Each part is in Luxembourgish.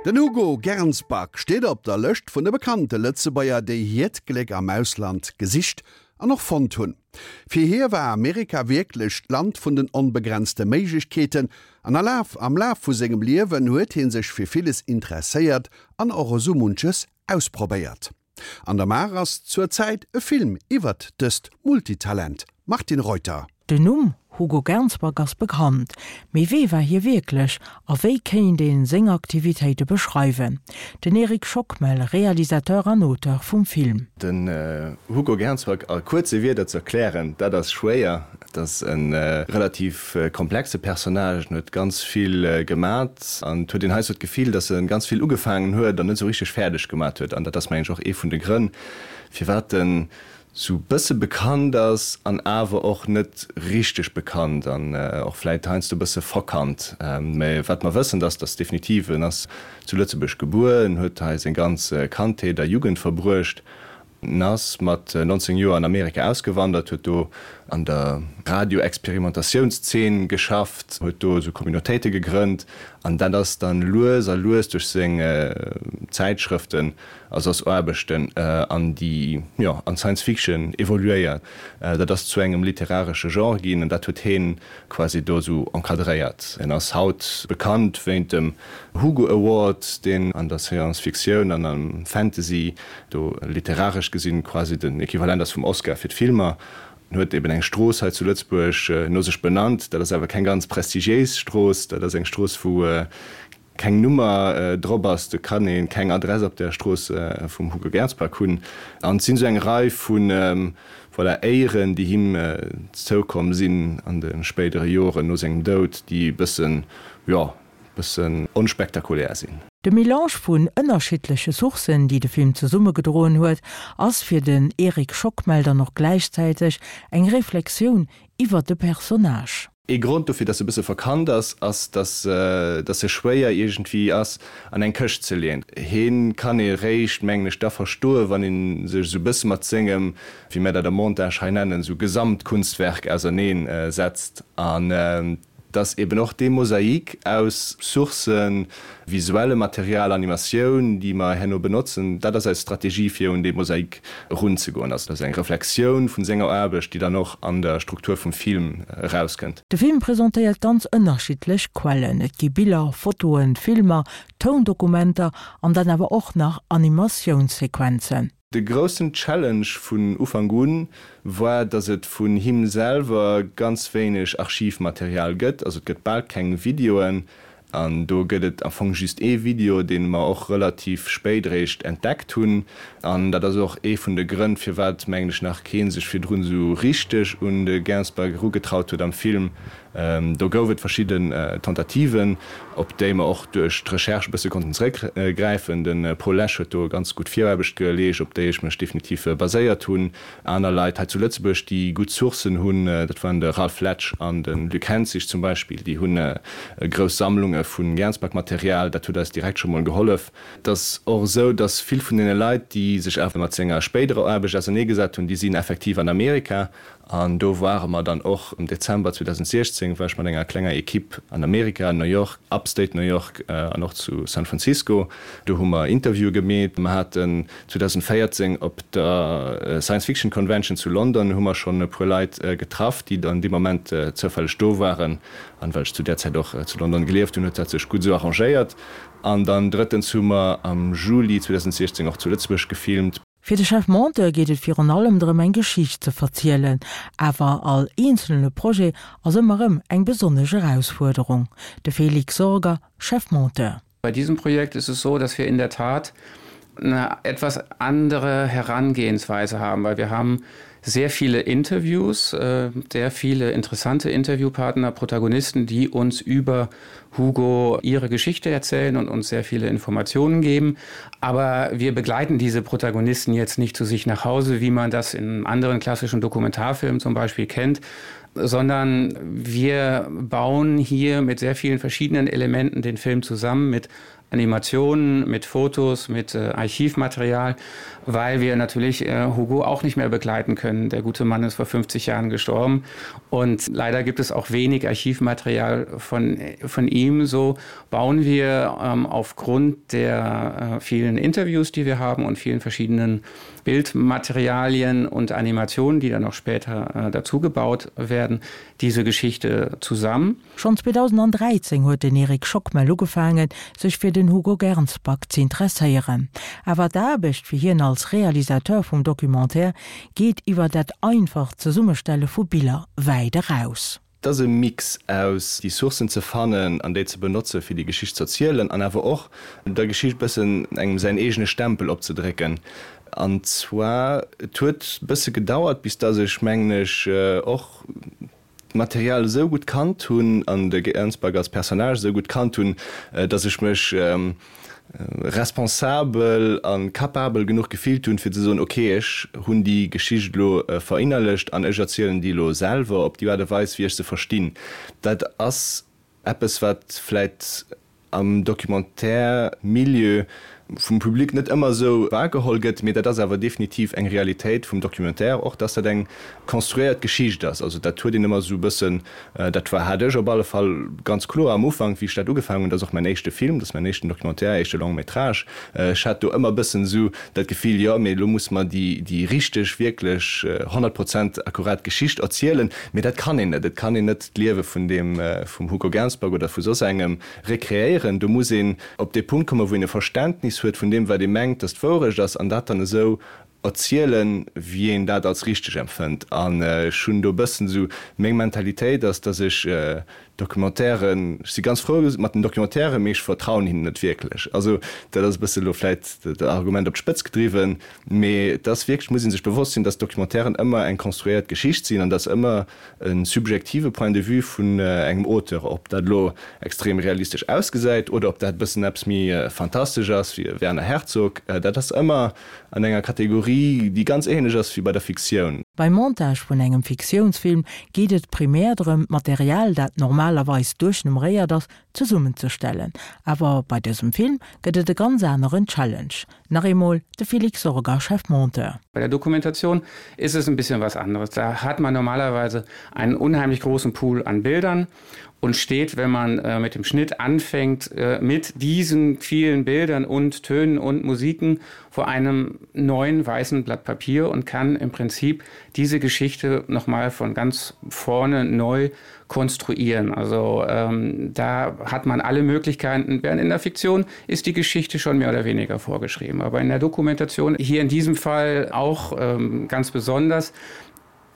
Den Hugo Gernsback steet op der Lëscht vun de bekannte Lëtzebuerger, déi hiert Gléck am Ausland gesicht an och fonnt hunn. Fir hie war Amerika wierklech d'Land vun den onbegrenzte Méiglechkeeten an a Laf am Laf vu sengem Liewen huet hie sech fir villes interesséiert an och esou munches ausprobéiert. An der Maach ass zur Zäit e Film iwwert dëst Multitalent. Martine Reuter. Den Numm Hugo Gernsback ass bekannt, mee wee war hie wierklech a wéi kéint een seng Aktivitéite beschreiwen? Den Eric Schockmel, Realisateur an Auteur vum Film. Den Hugo Gernsback a kuerze Wierder ze erklären, dat ass schwéier. Et ass e relativ komplexe Personnage, en huet ganz vill gemat an et huet een heiansdo d'Gefill, datt e ganz vill ugefaangen huet an net esou richteg fäerdeg gemat huet. An dat ass mengen ech och ee vun de Grënn, firwat en esou bësse bekannt ass an awer och net richteg bekannt an och vläit heiansdo e bësse verkannt. Mä wat mer wëssen, ass, datt definitiv en ass zu Lëtzebuerg gebuer, en huet hei seng ganz Kandheet a Jugend verbruecht En ass mat 19 Joer an Amerika ausgewandert, huet do an der Radio-Experimentatiounszeen geschafft, huet do esou Communautéite gegrënnt an dat ass dann lues a lues duerch seng Zäitschrëften a soss Aarbechten an déi, jo, an d'Science Fiction evoluéiert. Dat ass zu engem literaresche Genre ginn an dat huet heen quasi do esou encadréiert. En ass haut bekannt wéint dem Hugo Award, deen an der Science-Fictioun an am Fantasy do literaresch gesinn quasi den Equivalent ass vum Oscar fir d'Filmer. En huet eben eng Strooss hei zu Lëtzebuerg no sech benannt. Dat ass awer keng ganz prestigiéis Strooss. Dat ass eng Strooss, wou keng Nummer drop ass, do kann ee keng Adress op der Strooss vum Hugo Gernsback hunn. An et sinn esou eng Rei vu voilà, Éieren, déi him zoukomm sinn an de spéidere Joren no sengem Doud, déi e bëssen, jo, e bëssen onspektakulär sinn. De Melange vun ënnerschiddleche Sourcen, déi de Film zesummegedroen huet, ass fir den Eric Schockmel dann och gläichzäiteg eng Reflexioun iwwer de Personnage. Ee Grond dofir, dass se e bësse verkannt ass, ass, dass dass se schwéier iergendwéi ass an eng Këscht ze leeën. Heen kann ee réischt, mengen ech, da verstoen, wann ee sech esou e bësse mat sengem, wéi mär dat am Montage hei nennen, esou Gesamtkunstwerk auserneen setzt. An dass eben och dee Mosaik aus Sourcen, visuellem Material, Animatioun, déi mer herno benotzen, dat ass eis Strategie, fir un dee Mosaik erunzegoen. Also dat ass eng Reflexioun vun senger Aarbecht, déi dann och an der Struktur vum Film erauskënnt. De Film presentéiert ganz ënnerschiddlech Quellen, et gi Biller, Fotoen, Filmer, Toundokumenter an dann awer och nach Animatiounssequenzen. De groussen Challenge vun Ufank un war, datt et vun him selwer ganz wéineg Archivmaterial gëtt, also et gëtt bal keng Videoen An do gëtt et am Fong just ee Video, dee mer och relativ spéit eréischt entdeckt hunn. An dat ass och ee vun de Grënn, firwat, mengen ech, nach kee sech virdrun esou richteg un de Gainsbourg erugetraut huet am Film. Do gouf et verschidden Tentativen, op déi mer och duerch d'Recherche e bësse konnten zeréckgräifen. De Paul Lesch huet do ganz gutt Viraarbecht geleescht, op déi ech mech definitiv baséiert hunn. Aner Leit hei zu Lëtzebuerg, déi gutt Sourcen hunn, dat waren de Ralph Letsch an de Luc Henzig zum Beispill, déi hunn grouss Sammlunge vu Gernsback-Material. Dat huet eis direkt scho mol gehollef. Et ass och esou, datt vill vun deene Leit, déi sech awer mat senger spéiderer Aarbecht auserneegesat hunn, déi sinn effektiv an Amerika. An do ware mer dann och am Dezember 2016, war ech mat enger klenger Equipe an Amerika, New York, Upstate New York an och zu San Francisco. Do hu mer Interviewe gemeet. Mer haten 2014 op der Science Fiction Convention zu London hu mer schonn e puer Leit getraff, déi dann dee Moment zoufälleg do waren. An well ech zu där Zäit och zu London gelieft hunn, huet dat sech gutt esou arrangéiert. An dann drëttens hu mer am Juli 2016 och zu Lëtzebuerg gefilmt. Fir de Chef Monteur geet et virun allem drëm eng Geschicht ze verzielen, awer all eenzelne Projet ass ëmmer erëm eng besonnesch Erausfuerderung. De Felix Sorger, Chef Monteur. Bei diesem Projekt ist es so, dass wir in der Tat eine etwas andere Herangehensweise haben, weil wir haben sehr viele Interviews, äh, sehr viele interessante Interviewpartner, Protagonisten, die uns über Hugo ihre Geschichte erzählen und uns sehr viele Informationen geben. Aber wir begleiten diese Protagonisten jetzt nicht zu sich nach Hause, wie man das in anderen klassischen Dokumentarfilmen zum Beispiel kennt, sondern wir bauen hier mit sehr vielen verschiedenen Elementen den Film zusammen mit. Animationen, mit Fotos, mit äh, Archivmaterial, weil wir natürlich äh, Hugo auch nicht mehr begleiten können. Der gute Mann ist vor 50 Jahren gestorben und leider gibt es auch wenig Archivmaterial von, von ihm. So bauen wir ähm, aufgrund der äh, vielen Interviews, die wir haben und vielen verschiedenen Bildmaterialien und Animationen, die dann noch später äh, dazu gebaut werden, diese Geschichte zusammen. Schonn 2013 huet den Eric Schockmel ugefaangen, sech fir den Hugo Gernsback z'interesséieren. Awer d'Aarbecht fir hien als Realisateur vum Documentaire geet iwwer dat einfacht Zesummestelle vu Biller wäit eraus. Et ass e Mix aus déi Sourcen ze fannen an déi ze benotze fir déi Geschicht z'erzielen an awer och der Geschicht bëssen engem säin eegene Stempel opzedrécken. An zwar, et huet bësse gedauert bis dass ech, mengen ech, och d'Material esou gutt kannt hunn an de Gernsback als Personnage esou gutt kannt hunn, dass ech mech responsabel a capabel genuch gefillt hunn, fir ze soen, ok, ech hunn déi Geschicht elo verinnerlecht an ech erzielen déi elo selwer op déi Aart a Weis, wéi ech se verstinn. Dat ass eppes, wat vläit am Documentaire-Milieu vum Public net ëmmer esou wahrgeholl gëtt, mee dat ass awer definitiv eng Realitéit vum Documentaire och, dass dat eng konstruéiert Geschicht ass. Also dat huet een ëmmer esou e bëssen, dat war, hat ech op alle Fall ganz kloer am Ufank, wéi ech dat ugefaangen hunn, dat ass och mäin éischte Film, dat ass mäin éischten Documentaire, éischte Long métrage, ech hat do ëmmer e bëssen esou dat Gefill, jo, mee elo musse mer déi, déi richteg, wierklech 100 Prozent akkurat Geschicht erzielen, mee dat kann een net. Et kann een net d'Liewe vun deem, vum Hugo Gernsback oder vu soss engem rekreéieren. Do muss een op dee Punkt kommen, wou een e Verständnis huet vun deem, wat ee mengt, datt d'Wourecht ass, an dat dann esou erzielen, wéi een dat als richteg empfënnt. An ech hunn do e bëssen esou, meng Mentalitéit ass, datt ech Documentairen, ech si ganz frou mat den Documentairen, mee ech vertrauen hinnen net wierklech. Also dat ass e bësse elo vläit dat Argument op d'Spëtz gedriwwen, mee et ass wierklech, muss ee sech bewosst sinn, datt Documentairen ëmmer eng konstruéiert Geschicht sinn an datt ëmmer e subjektive Point de vue vun engem Auteur, ob dat elo extrem realistesch ausgesäit oder ob dat e bëssen eppes méi fantastesch ass wéi e Werner Herzog, dat ass ëmmer an enger Kategorie, déi ganz ähnlech ass wéi bei der Fiktioun. Beim Montage vun engem Fiktiounsfilm geet et primär drëm, d'Material, dat normalerweis duerchnummeréiert ass, zesummenzestellen. Awer bei dësem Film gëtt et e ganz aneren Challenge. Nach eemol de Felix Sorger, Chefmonteur. Bei der Dokumentation ist es ein bisschen was anderes. Da hat man normalerweise einen unheimlich großen Pool an Bildern und steht, wenn man äh, mit dem Schnitt anfängt, äh, mit diesen vielen Bildern und Tönen und Musiken vor einem neuen weißen Blatt Papier und kann im Prinzip diese Geschichte noch mal von ganz vorne neu konstruieren. Also ähm, da hat man alle Möglichkeiten, während in der Fiktion ist die Geschichte schon mehr oder weniger vorgeschrieben. Aber in der Dokumentation hier in diesem Fall auch ähm, ganz besonders,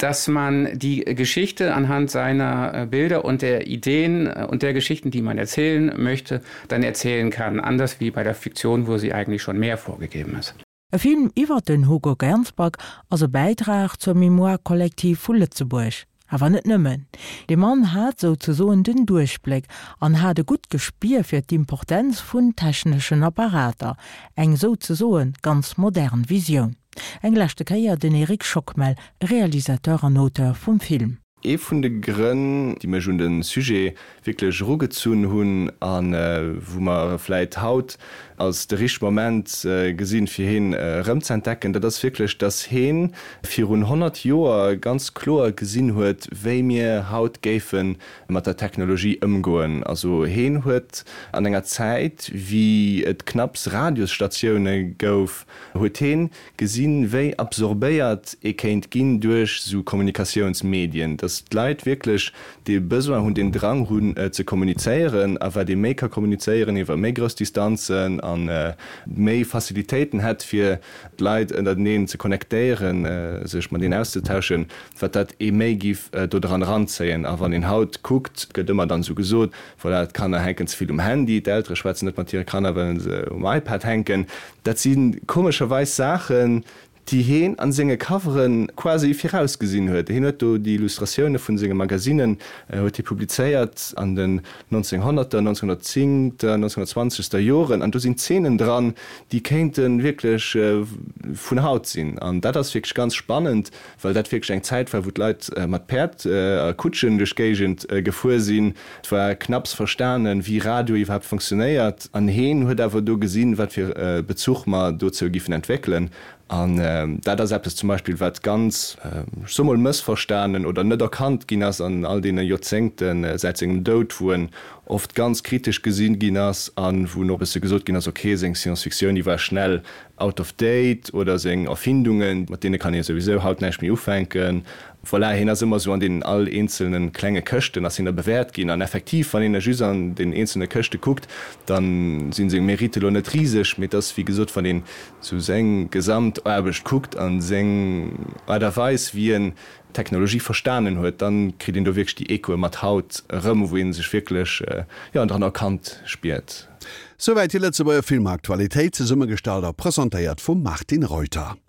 dass man die Geschichte anhand seiner äh, Bilder und der Ideen äh, und der Geschichten, die man erzählen möchte, dann erzählen kann, anders wie bei der Fiktion, wo sie eigentlich schon mehr vorgegeben ist. E Film iwwer den Hugo Gernsback ass e Bäitrag zur Mémoire collective vu Lëtzebuerg. Awer net nëmmen. De Mann hat souzesoen den Duerchbléck an hat e gutt Gespier fir d'Importenz vun techneschen Apparater, eng souzesoe ganz modern Visioun. Eng leschte Kéier den Eric Schockmel, Realisateur an Auteur vum Film. Ee vun de Grënn, déi mech un de Sujet wierklech erugezunn hunn a wou mer vläit haut als de richtege Moment gesinn, fir heen erëmz'entdecken, dat ass wierklech, dass heen virun 100 Joer ganz kloer gesinn huet, wéi mir haut géife mat der Technologie ëmgoen. Also heen huet an enger Zäit, wéi et knapps Radiosstatioune gouf, huet heen gesinn, wéi absorbéiert ee kéint ginn duerch esou Kommunikatiounsmedien, dass d'Leit wierklech dee Besoin hunn, deen Drang hunn ze kommunizéieren a wat ee méi ka kommunizéieren iwwer méi grouss Distanzen a méi Facilitéiten hätt, fir d'Leit ënnerteneen ze connectéieren, sech mateneen auszetauschen, wat dat ee méi giff do dran eranzéien. A wann een haut kuckt, gëtt ëmmer dann esou gesot, voilà, d'Kanner hänken ze vill um Handy, d'Eltere schwätzen net mat hire Kanner, well se um iPad hänken. Dat si komescherweis Saachen, déi heen an senge Covere quasi virausgesinn huet. Heen huet do déi Illustratioune vun senge Magasinnen huet hie publizéiert an den 1900er, 1910 ter, 1920 ter Joren an do sinn Zeenen dran, déi kéinte wierklech vun haut sinn. An dat ass wierklech ganz spannend, well dat wierklech eng Zäit war, wou d'Leit mat Päerd a Kutschen duerch d'Géigend gefuer sinn. Et war knapps verstanen, wéi Radio iwwerhaapt funktionéiert. An heen huet awer do gesinn, wat fir e Bezuch mer dozou giffen entwéckelen. An dat ass eppes zum Beispill, wat ganz, ech soe mol, mëssverstanen oder net erkannt ginn ass an all deene Joerzéngte säit sengem Doud, wou en oft ganz kritesch gesi ginn ass a wou och e bësse gesot ginn ass, okay, seng Science-Fictioun, déi war schnell out of date oder seng Erfindungen, mat deene kann ee souwisou haut näischt méi ufänken. Voilà, hien ass ëmmer esou an deenen all eenzelne klenge Këschten ass hien da bewäert ginn. An effektiv, wann een da just an den eenzelne Këschte kuckt, da sinn seng Mérite elo net riseg, mee et ass, wéi gesot, wann een sou seng gesamt Aarbecht kuckt an seng Aart a Weis wéi en d'Technologie verstanen huet, dann kritt een do wierklech déi Echoe mat haut erëm, wou een sech wierklech jo dran erkannt spiert. Souwäit déi Lëtzebuerger Filmaktualitéit, zesummegestallt a presentéiert vum Martine Reuter.